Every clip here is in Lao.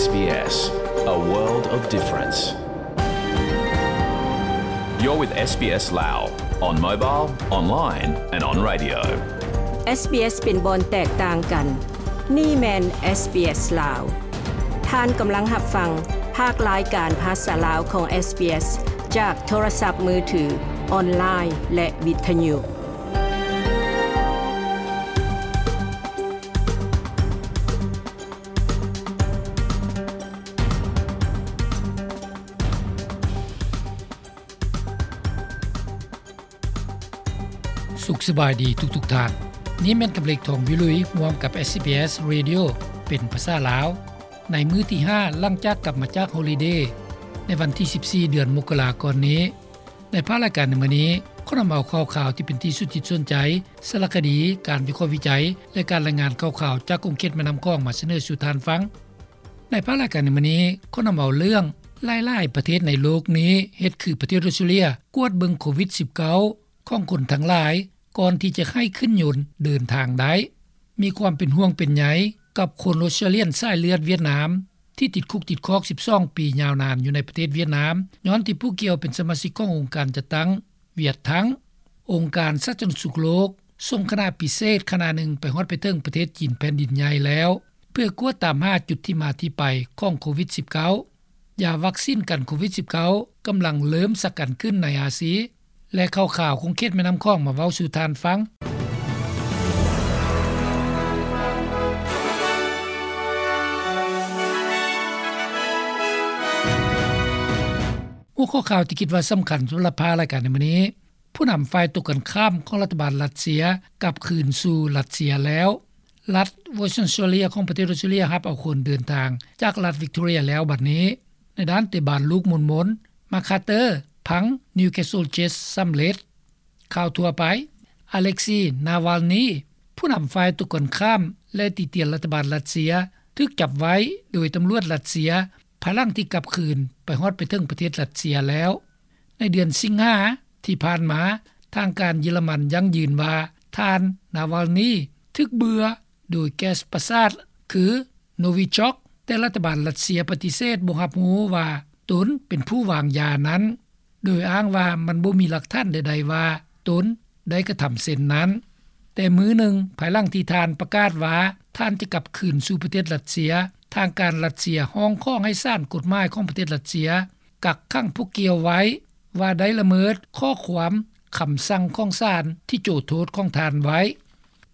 SBS, a world of difference. You're with SBS Lao on mobile, online and on radio. SBS ເປັນບ່ອນແຕກຕ່າງກັນ. ນີ້ແມ່ນ SBS ລາວ. ທ່ານກຳລັງຮັບຟັງພາກລາຍການພາສາລາວຂອງ SBS ຈາກໂທລະສັບມືຖື, ອອນລາຍ ແລະ ວິທະຍຸ. ສຸກສະບາຍດີທຸກໆທ່ານ. ນີ້ແມ່ນກຳເລັກ ທອງວິລຸຍ ຮ່ວມກັບ SBS Radio ເປັນພາສາລາວ ໃນມື້ທີຫ້າ ຫຼັງຈາກກັບມາຈາກຮອລິເດ ໃນວັນທີສິບສີ່ ເດືອນມົກກະລາກ່ອນນີ້. ໃນພາກລາຍການໃນມື້ນີ້ ຂໍນຳເອົາຂ່າວຄາວທີ່ເປັນທີ່ສົນຈິດສົນໃຈ, ສາລະຄະດີ, ການວິເຄາະວິໄຈ ແລະ ການລາຍງານຂ່າວຄາວຈາກຂົງເຂດແມ່ນ້ຳຂອງມາສະເໜີສູ່ທ່ານຟັງ. ໃນພາກລາຍການໃນມື້ນີ້ ຂໍນຳເອົາເລື່ອງ ຫຼາຍໆປະເທດໃນໂລກນີ້ເຮັດຄືປະເທດອົດສະຕຣາເລຍ ກວດເບິ່ງໂຄວິດສິບເກົ້າຂອງຄົນທັງຫຼາຍ ກ່ອນທີ່ຈະໃຫ້ຂຶ້ນຍົນເດີນທາງໄດ້. ມີຄວາມເປັນຫ່ວງເປັນໃຍກັບຄົນອົດສະຕຣາເລຍນສາຍເລືອດຫວຽດນາມ ທີ່ຕິດຄຸກຕິດຄອກສິບສອງປີຍາວນານຢູ່ໃນປະເທດຫວຽດນາມ ຍ້ອນທີ່ຜູ້ກ່ຽວເປັນສະມາຊິກຂອງອົງການຈັດຕັ້ງຫວຽດທັງ. ອົງການສາທາລະນະສຸກໂລກ ສົ່ງຄະນະພິເສດຄະນະໜຶ່ງໄປຮອດໄປເຖິງປະເທດຈີນແຜ່ນດິນໃຫຍ່ແລ້ວ ເພື່ອກວດຕາມຫາຈຸດທີ່ມາທີ່ໄປຂອງໂຄວິດສິບເກົ້າ. ຢາວັກຊີນກັນໂຄວິດສິບເກົ້າກຳລັງເລີ່ມສັກກັນຂຶ້ນໃນອາຊີ ແລະ ຂ່າວຄາວຂົງເຂດແມ່ນ້ຳຂອງມາເວົ້າສູ່ທ່ານຟັງ. ຫົວຂໍ້ຂ່າວທີ່ຄິດວ່າສຳຄັນສຳລັບພາກລາຍການໃນມື້ນີ້, ຜູ້ນຳຝ່າຍຕົງກັນຂ້າມຂອງລັດຖະບານຣັດເຊຍກັບຄືນສູ່ຣັດເຊຍແລ້ວ. ລັດເວີສເຊີນເນຍຂອງປະເທດອົດສະຕຣາເລຍ ຮັບເອົາຄົນເດີນທາງຈາກລັດວິກຕໍເຣຍແລ້ວບັດນີ້. ໃນດ້ານເຕະບານລູກໝູນໆ, ມາຄາເຕີ ພັງ ນິວຄາສເຊິນເຈດສຳເລັດ. ຂ່າວທົ່ວໄປ, ອາເລັກຊີ ນາວາລນີ ຜູ້ນຳຝ່າຍຕົງກັນຂ້າມ ແລະ ຕິຕຽນລັດຖະບານຣັດເຊຍ ຖືກຈັບໄວ້ໂດຍຕຳຫຼວດຣັດເຊຍ ພາຍຫຼັງທີ່ກັບຄືນໄປຮອດໄປເຖິງປະເທດຣັດເຊຍແລ້ວ. ໃນເດືອນສິງຫາທີ່ຜ່ານມາ, ທາງການເຢຍລະມັນຢັ້ງຢືນວ່າ ທ່ານ ນາວາລນີ ຖືກເບື່ອໂດຍແກັສປະສາດຄື ໂນວິຊອກ, ແຕ່ລັດຖະບານຣັດເຊຍປະຕິເສດບໍ່ຮັບຮູ້ວ່າຕົນເປັນຜູ້ວາງຢານັ້ນ, ໂດຍອ້າງວ່າມັນບໍ່ມີຫຼັກຖານໃດໆວ່າຕົນໄດ້ກະທຳເຊັ່ນນັ້ນ. ແຕ່ມື້ໜຶ່ງ, ພາຍຫຼັງທີ່ທ່ານປະກາດວ່າທ່ານຈະກັບຄືນສູ່ປະເທດຣັດເຊຍ, ທາງການຣັດເຊຍຮ້ອງຂໍໃຫ້ສານກົດໝາຍຂອງປະເທດຣັດເຊຍ ກັກຂັງຜູ້ກ່ຽວໄວ້ ວ່າໄດ້ລະເມີດຂໍ້ຄວາມຄຳສັ່ງຂອງສານທີ່ໂຈໂທດຂອງທ່ານໄວ້.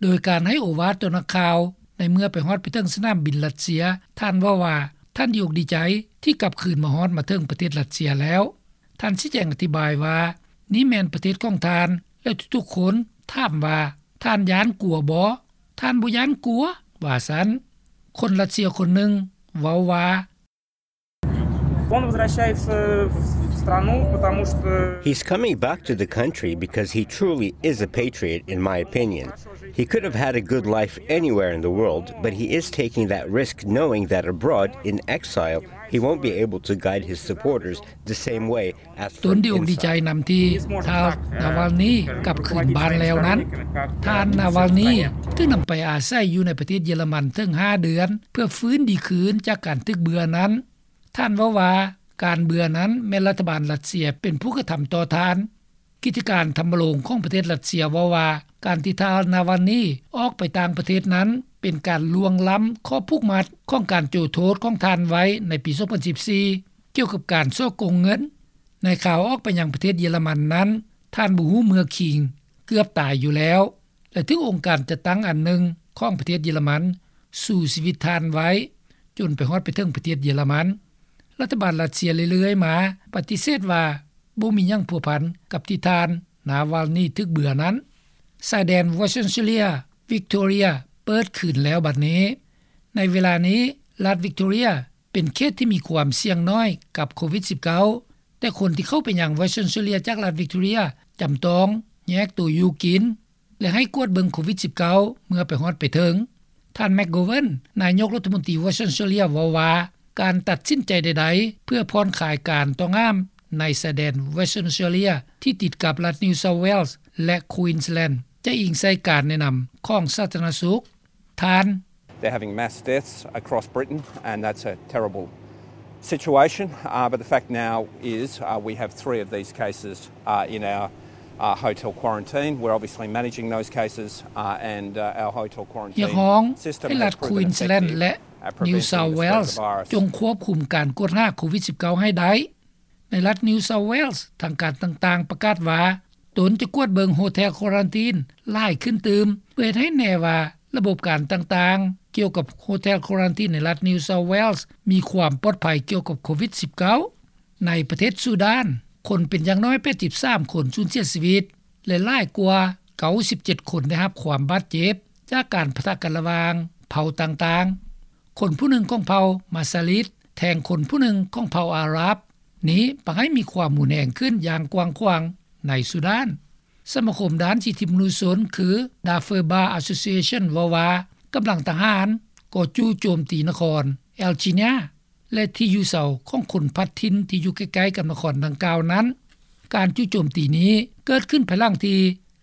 ໂດຍການໃຫ້ໂອວາດຕໍ່ນັກຂ່າວ ໃນເມື່ອໄປຮອດໄປເຖິງສະໜາມບິນຣັດເຊຍ, ທ່ານເວົ້າວ່າທ່ານດີອົກດີໃຈທີ່ກັບຄືນມາຮອດມາເຖິງປະເທດຣັດເຊຍແລ້ວ. ທ່ານຊີ້ແຈງອະທິບາຍວ່າ ນີ້ແມ່ນປະເທດຂອງທ່ານ ແລະ ທຸກໆຄົນຖາມວ່າ ທ່ານຢ້ານກົວບໍ່? ທ່ານບໍ່ຢ້ານກົວ, ວ່າຊັ້ນ. ຄົນຣັດເຊຍຄົນໜຶ່ງເວົ້າວ່າ Он возвращается в страну, потому что He's coming back to the country because he truly is a patriot, in my opinion. He could have had a good life anywhere in the world, but he is taking that risk knowing that abroad, in exile, he won't be able to guide his supporters the same way ຕົນດີອົກດີໃຈນຳທີ່ທ່ານ ນາວາລນີ ກັບຄືນບ້ານແລ້ວນັ້ນ. ທ່ານ ນາວາລນີ ຖືກນຳໄປອາໄສຢູ່ໃນປະເທດເຢຍລະມັນເຖິງຫ້າເດືອນ ເພື່ອຟື້ນດີຄືນຈາກການຖືກເບື່ອນັ້ນ. ທ່ານເວົ້າວ່າ ການເບື່ອນັ້ນແມ່ນລັດຖະບານຣັດເຊຍເປັນຜູ້ກະທຳຕໍ່ທ່ານ. ກິດຈະການທຳມະໂລງຂອງປະເທດຣັດເຊຍເວົ້າວ່າ ການທີ່ທ່ານ ນາວາລນີ ອອກໄປຕ່າງປະເທດນັ້ນ ເປັນການລ່ວງລ້ຳຂໍ້ຜູກມັດຂອງການໂຈໂທດຂອງທ່ານໄວ້ໃນປີສອງພັນສິບສີ່ ກ່ຽວກັບການສໍ້ໂກງເງິນ. ໃນຂ່າວອອກໄປຍັງປະເທດເຢຍລະມັນນັ້ນ, ທ່ານບໍ່ຮູ້ເມືອຄິງ, ເກືອບຕາຍຢູ່ແລ້ວ ແລະ ຖືກອົງການຈັດຕັ້ງອັນໜຶ່ງຂອງປະເທດເຢຍລະມັນສູ້ຊີວິດທ່ານໄວ້ ຈົນໄປຮອດໄປເຖິງປະເທດເຢຍລະມັນ. ລັດຖະບານຣັດເຊຍເລື້ອຍໆມາປະຕິເສດວ່າບໍ່ມີຫຍັງພົວພັນກັບທີ່ທ່ານ ນາວາລນີ ຖືກເບື່ອນັ້ນ. ຊາຍແດນ Western Australia Victoria ເປີດຄືນແລ້ວບັດນີ້. ໃນເວລານີ້ ລັດ Victoria ເປັນເຂດທີ່ມີຄວາມສ່ຽງໜ້ອຍກັບໂຄວິດສິບເກົ້າ, ແຕ່ຄົນທີ່ເຂົ້າໄປຍັງ Western Australia ຈາກລັດ Victoria ຈຳຕ້ອງແຍກໂຕຢູ່ກິນ ແລະ ໃຫ້ກວດເບິ່ງໂຄວິດສິບເກົ້າເມື່ອໄປຮອດໄປເຖິງ. ທ່ານ McGovern ນາຍົກລັດຖະມົນຕີ Western Australia ເວົ້າວ່າ ການຕັດສິນໃຈໃດໆເພື່ອຜ່ອນຄາຍການຕ້ອງຫ້າມໃນຊາຍແດນ Western Australia ທີ່ຕິດກັບລັດ New South Wales ແລະ Queensland ຈະອີງໃສ່ການແນະນຳຂອງສາທາລະນະສຸກ. ທ່ານ They're having mass deaths across Britain, and that's a terrible situation. Uh, but the fact now is, uh, we have three of these cases, uh, in our, uh, hotel quarantine. We're obviously managing those cases, uh, and, uh, our hotel quarantine system has proven effective at preventing the spread of the virus. ຮຽກຮ້ອງໃຫ້ລັດ Queensland ແລະ New South Wales ຈົ່ງຄວບຄຸມການກວດຫາໂຄວິດສິບເກົ້າ ໃຫ້ໄດ້. ໃນລັດ New South Wales ທາງການຕ່າງໆປະກາດວ່າ ຕົນຈະກວດເບິ່ງ Hotel Quarantine ຫຼາຍຂຶ້ນຕື່ມ ເພື່ອເຮັດໃຫ້ແນ່ວ່າລະບົບການຕ່າງໆ ກ່ຽວກັບ Hotel Quarantine ໃນລັດ New South Wales ມີຄວາມປອດໄພກ່ຽວກັບໂຄວິດສິບເກົ້າ. ໃນປະເທດຊູດານ, ຄົນເປັນຢ່າງໜ້ອຍ ແປດສິບສາມ ຄົນ ສູນເສຍຊີວິດ ແລະ ຫຼາຍກວ່າ ເກົ້າສິບເຈັດ ຄົນ ໄດ້ຮັບຄວາມບາດເຈັບ ຈາກການປະທະກັນລະຫວ່າງເຜົ່າຕ່າງໆ. ຄົນຜູ້ໜຶ່ງຂອງເຜົ່າມາຊາລິດ ແທງຄົນຜູ້ໜຶ່ງຂອງເຜົ່າອາຣັບ ນີ້ປະໃຫ້ມີຄວາມຮຸນແຮງຂຶ້ນຢ່າງກວ້າງຂວາງໃນຊູດານ. ສະມາຄົມດ້ານສິດທິມະນຸດຊົນ ຄື Darfur Bar Association ເວົ້າວ່າ ກຳລັງທະຫານກໍຈູ່ໂຈມຕີນະຄອນ El Geneina ແລະ ທີ່ຢູ່ເຊົາຂອງຄົນພັດຖິ່ນທີ່ຢູ່ໃກ້ໆກັບນະຄອນດັ່ງກ່າວນັ້ນ. ການຈູ່ໂຈມຕີນີ້ເກີດຂຶ້ນພາຍຫຼັງທີ່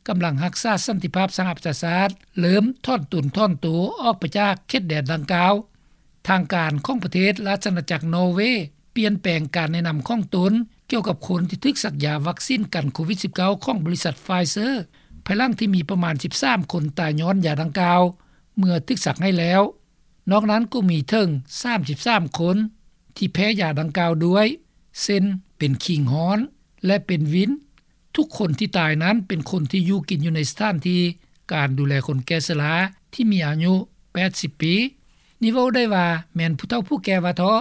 ກຳລັງຮັກສາສັນຕິພາບສະຫະປະຊາຊາດ ເລີ່ມຖອນຕົນຖອນໂຕອອກໄປຈາກເຂດແດນດັ່ງກ່າວ. ທາງການຂອງປະເທດລາຊະອານາຈັກນໍເວ ປ່ຽນແປງການແນະນຳຂອງຕົນກ່ຽວກັບຄົນທີ່ຖືກສັກຢາວັກຊີນກັນໂຄວິດສິບເກົ້າ ຂອງບໍລິສັດ Pfizer ພາຍຫຼັງທີ່ມີປະມານສິບສາມຄົນຕາຍຍ້ອນຢາດັ່ງກ່າວ ເມື່ອຖືກສັກໃຫ້ແລ້ວ. ນອກນັ້ນກໍມີເຖິງສາມສິບສາມຄົນທີ່ແພ້ຢາດັ່ງກ່າວດ້ວຍ ເຊັ່ນ ເປັນຄີງຮ້ອນ ແລະ ເປັນວິນ. ທຸກຄົນທີ່ຕາຍນັ້ນເປັນຄົນທີ່ຢູ່ກິນຢູ່ໃນສະຖານທີ່ການດູແລຄົນແກ່ຊະລາທີ່ມີອາຍຸແປດສິບປີ. ນີ້ເວົ້າໄດ້ວ່າແມ່ນຜູ້ເຖົ້າຜູ້ແກ່ວ່າເທາະ.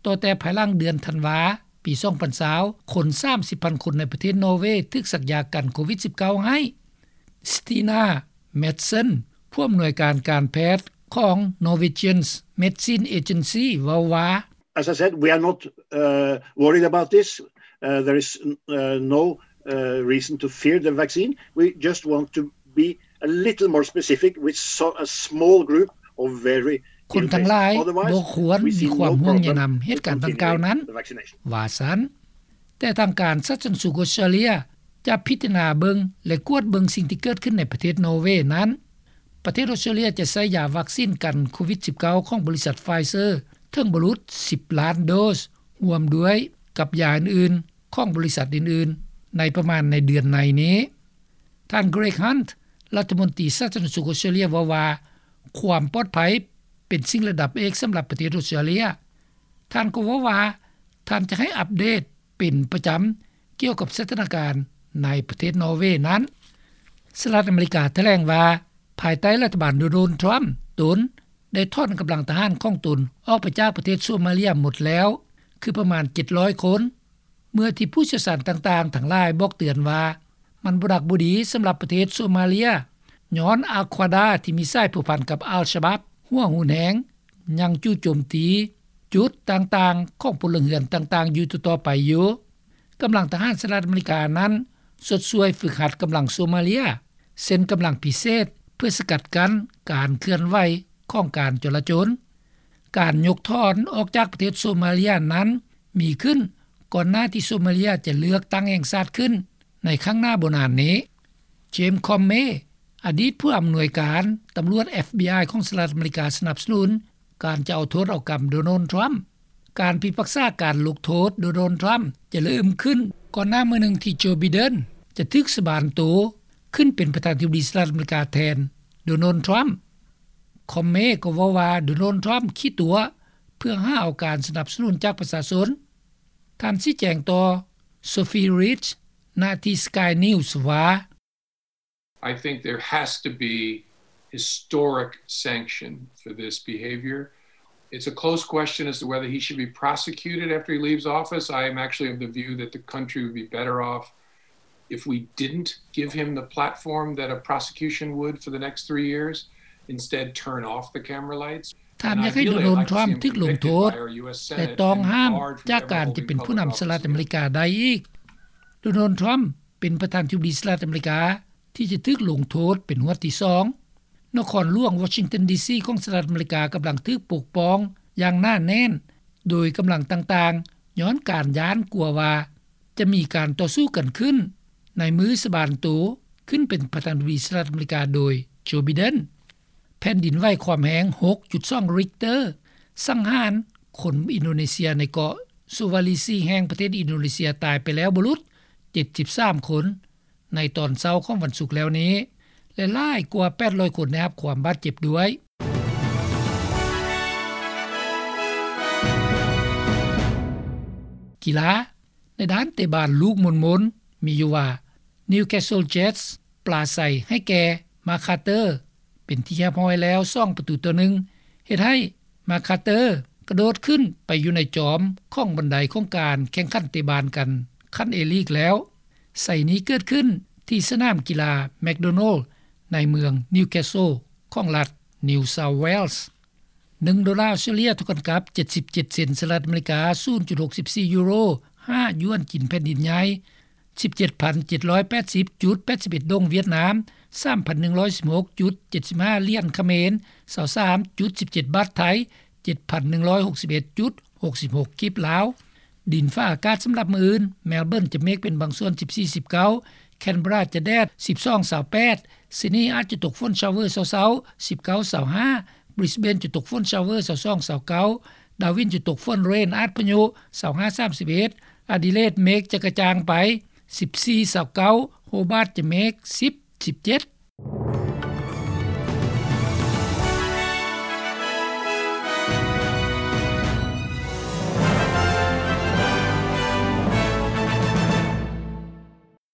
ຕໍ່ແຕ່ພາຍຫຼັງເດືອນທັນວາ ປີສອງພັນຊາວ ຄົນສາມສິບພັນຄົນໃນປະເທດນໍເວຖືກສັກຢາກັນໂຄວິດສິບເກົ້າໃຫ້. Stina Madsen ຜູ້ອຳນວຍການການແພດຂອງ Norwegian Medicine Agency ເວົ້າວ່າ As I said, we are not, uh, worried about this. Uh, there is, uh, no, uh, reason to fear the vaccine. We just want to be a little more specific with so, a small group of very ill patients. ຄົນທັງຫຼາຍບໍ່ຄວນມີຄວາມຫ່ວງໃຍນຳເຫດການດັ່ງກ່າວນັ້ນ ວ່າຊັ້ນ. ແຕ່ທາງການສາທາລະນະສຸກອົດສະຕຣາເລຍຈະພິຈາລະນາເບິ່ງ ແລະ ກວດເບິ່ງສິ່ງທີ່ເກີດຂຶ້ນໃນປະເທດນໍເວນັ້ນ. ປະເທດອົດສະຕຣາເລຍຈະໃຊ້ຢາວັກຊີນກັນໂຄວິດສິບເກົ້າ ຂອງບໍລິສັດ Pfizer ເຖິງບໍ່ຫຼຸດສິບລ້ານໂດສ ຮ່ວມດ້ວຍກັບຢາອື່ນໆຂອງບໍລິສັດອື່ນໆ ໃນປະມານໃນເດືອນໃນນີ້. ທ່ານ Greg Hunt ລັດຖະມົນຕີສາທາລະນະສຸກອົດສະຕຣາເລຍເວົ້າວ່າ ຄວາມປອດໄພເປັນສິ່ງລະດັບເອກສຳລັບປະເທດອົດສະຕຣາເລຍ. ທ່ານກໍເວົ້າວ່າ ທ່ານຈະໃຫ້ອັບເດດເປັນປະຈຳກ່ຽວກັບສະຖານະການໃນປະເທດນໍເວນັ້ນ. ສະຫະລັດອາເມລິກາຖະແຫຼງວ່າ ພາຍໃຕ້ລັດຖະບານໂດນັລ ທຣຳ ຕົນໄດ້ຖອນກຳລັງທະຫານຂອງຕົນອອກໄປຈາກປະເທດໂຊມາເລຍໝົດແລ້ວ ຄືປະມານເຈັດຮ້ອຍຄົນ. ເມື່ອທີ່ຜູ້ຊ່ຽວຊານຕ່າງໆທັງຫຼາຍບອກເຕືອນວ່າ ມັນບໍ່ດັກບໍ່ດີສຳລັບປະເທດໂຊມາເລຍ ຍ້ອນອາຄວາດາທີ່ມີສາຍພົວພັນກັບອັລຊະບາບ ຫົວຮຸນແຮງ ຍັງຈູ່ໂຈມຕີຈຸດຕ່າງໆຂອງພົນລະເຮືອນຕ່າງໆຢູ່ຕໍ່ໆໄປຢູ່. ກຳລັງທະຫານສະຫະລັດອາເມລິການັ້ນຊົດຊ່ວຍຝຶກຫັດກຳລັງໂຊມາເລຍ ເຊັ່ນກຳລັງພິເສດ ເພື່ອສະກັດກັ້ນການເຄື່ອນໄຫວຂອງການຈໍລະຈົນ. ການຍົກຖອນອອກຈາກປະເທດໂຊມາເລຍນັ້ນມີຂຶ້ນກ່ອນໜ້າທີ່ໂຊມາເລຍຈະເລືອກຕັ້ງແຫ່ງຊາດຂຶ້ນໃນຂ້າງໜ້າບໍ່ນານນີ້. James Comey ອະດີດຜູ້ອຳນວຍການຕຳຫຼວດ FBI ຂອງສະຫະລັດອາເມລິກາສະໜັບສະໜູນການຈະເອົາໂທດເອົາກຳໂດນັລ ທຣຳ. ການພິພາກສາການລົງໂທດໂດນັລ ທຣຳຈະເລີ່ມຂຶ້ນກ່ອນໜ້າມື້ໜຶ່ງທີ່ໂຈ ໄບເດັນ ຈະຖືກສະບານໂຕຂຶ້ນເປັນປະທານາທິບໍດີສະຫະລັດອາເມລິກາແທນໂດນັລ ທຣຳ. Comey ກໍເວົ້າວ່າໂດນັລ ທຣຳຂີ້ຕົວະເພື່ອຫາເອົາການສະໜັບສະໜູນຈາກປະຊາຊົນ. ທ່ານຊີ້ແຈງຕໍ່ Sophie Reed ນະທີ່ Sky News ວ່າ I think there has to be historic sanction for this behavior. It's a close question as to whether he should be prosecuted after he leaves office. I am actually of the view that the country would be better off if we didn't give him the platform that a prosecution would for the next three years, instead turn off the camera lights. ທ່ານຢາກໃຫ້ໂດນັລ ທຣຳ ຖືກລົງໂທດ ແລະ ຕ້ອງຫ້າມຈາກການຈະເປັນຜູ້ນຳສະຫະລັດອາເມລິກາໄດ້ອີກ. ໂດນັລ ທຣຳ ເປັນປະທານາທິບໍດີສະຫະລັດອາເມລິກາທີ່ຈະຖືກລົງໂທດເປັນຫວດທີສອງ. ນະຄອນຫຼວງວໍຊິງຕັນ ດີຊີ ຂອງສະຫະລັດອາເມລິກາກຳລັງຖືກປົກປ້ອງຢ່າງໜາແໜ້ນໂດຍກຳລັງຕ່າງໆ ຍ້ອນການຢ້ານກົວວ່າຈະມີການຕໍ່ສູ້ກັນຂຶ້ນໃນມື້ສະບານໂຕຂຶ້ນເປັນປະທານາທິບໍດີສະຫະລັດອາເມລິກາໂດຍໂຈ ໄບເດັນ. ແຜ່ນດິນໄຫວຄວາມແຮງ ຫົກຈຸດສອງ ຣິກເຕີ ສັງຫານຄົນອິນໂດເນເຊຍໃນເກາະ Sulawesi ແຫ່ງປະເທດອິນໂດເນເຊຍຕາຍໄປແລ້ວບໍ່ຫຼຸດ ເຈັດສິບສາມຄົນ ໃນຕອນເຊົ້າຂອງວັນສຸກແລ້ວນີ້ ແລະ ຫຼາຍກວ່າ ແປດຮ້ອຍຄົນ ໄດ້ຮັບຄວາມບາດເຈັບດ້ວຍ. ກິລາ ໃນດ້ານເຕະບານລູກມົນໆ ມີຢູ່ວ່າ Newcastle Jets ປລາໄຊໃຫ້ແກ່ Mark Carter ເປັນທີ່ຮຽບຮ້ອຍແລ້ວ ສອງປະຕູຕໍ່ໜຶ່ງ ເຮັດໃຫ້ Mark Carter ກະໂດດຂຶ້ນໄປຢູ່ໃນຈອມຂອງບັນໄດຂອງການແຂ່ງຂັນເຕະບານກັນຂັ້ນ A-League ແລ້ວ. ໄຊນີ້ເກີດຂຶ້ນທີ່ສະໜາມກິລາ McDonald ໃນເມືອງ Newcastle ຂອງລັດ New South Wales. ໜຶ່ງໂດລາອົດສະຕຣາເລຍ ເທົ່າກັນກັບ ເຈັດສິບເຈັດເຊັນສະຫະລັດອາເມລິກາ, ສູນຈຸດຫົກສິບສີ່ຢູໂຣ, ຫ້າຢວນຈີນແຜ່ນດິນໃຫຍ່, ສິບເຈັດພັນເຈັດຮ້ອຍແປດສິບຈຸດແປດສິບເອັດດົງຫວຽດນາມ, ສາມພັນໜຶ່ງຮ້ອຍສິບຫົກຈຸດເຈັດສິບຫ້າຫຼຽນຂະເໝນ, ຊາວສາມຈຸດສິບເຈັດບາດໄທ, ເຈັດພັນໜຶ່ງຮ້ອຍຫົກສິບເອັດຈຸດຫົກສິບຫົກກີບລາວ. ດິນຟ້າອາກາດສຳລັບມື້ອື່ນ, ແມລເບີນຈະເມກເປັນບາງສ່ວນ ສິບສີ່ ສິບເກົ້າ, ແຄນເບຣາຈະແດດ ສິບສອງ ຊາວແປດ, ຊິດນີອາດຈະຕົກຝົນຊາວເວີເຊົ້າໆ ສິບເກົ້າ ຊາວຫ້າ, ບຣິສເບນຈະຕົກຝົນຊາວເວີ ຊາວສອງ ຊາວເກົ້າ, ດາວິນຈະຕົກຝົນເຣນອາດພະຍຸ ຊາວຫ້າ ສາມສິບເອັດ, ອາດີເລດເມກຈະກະຈ່າງໄປ ສິບສີ່ ຊາວເກົ້າ, ໂຮບາດຈະເມກ ສິບ ສິບເຈັດ,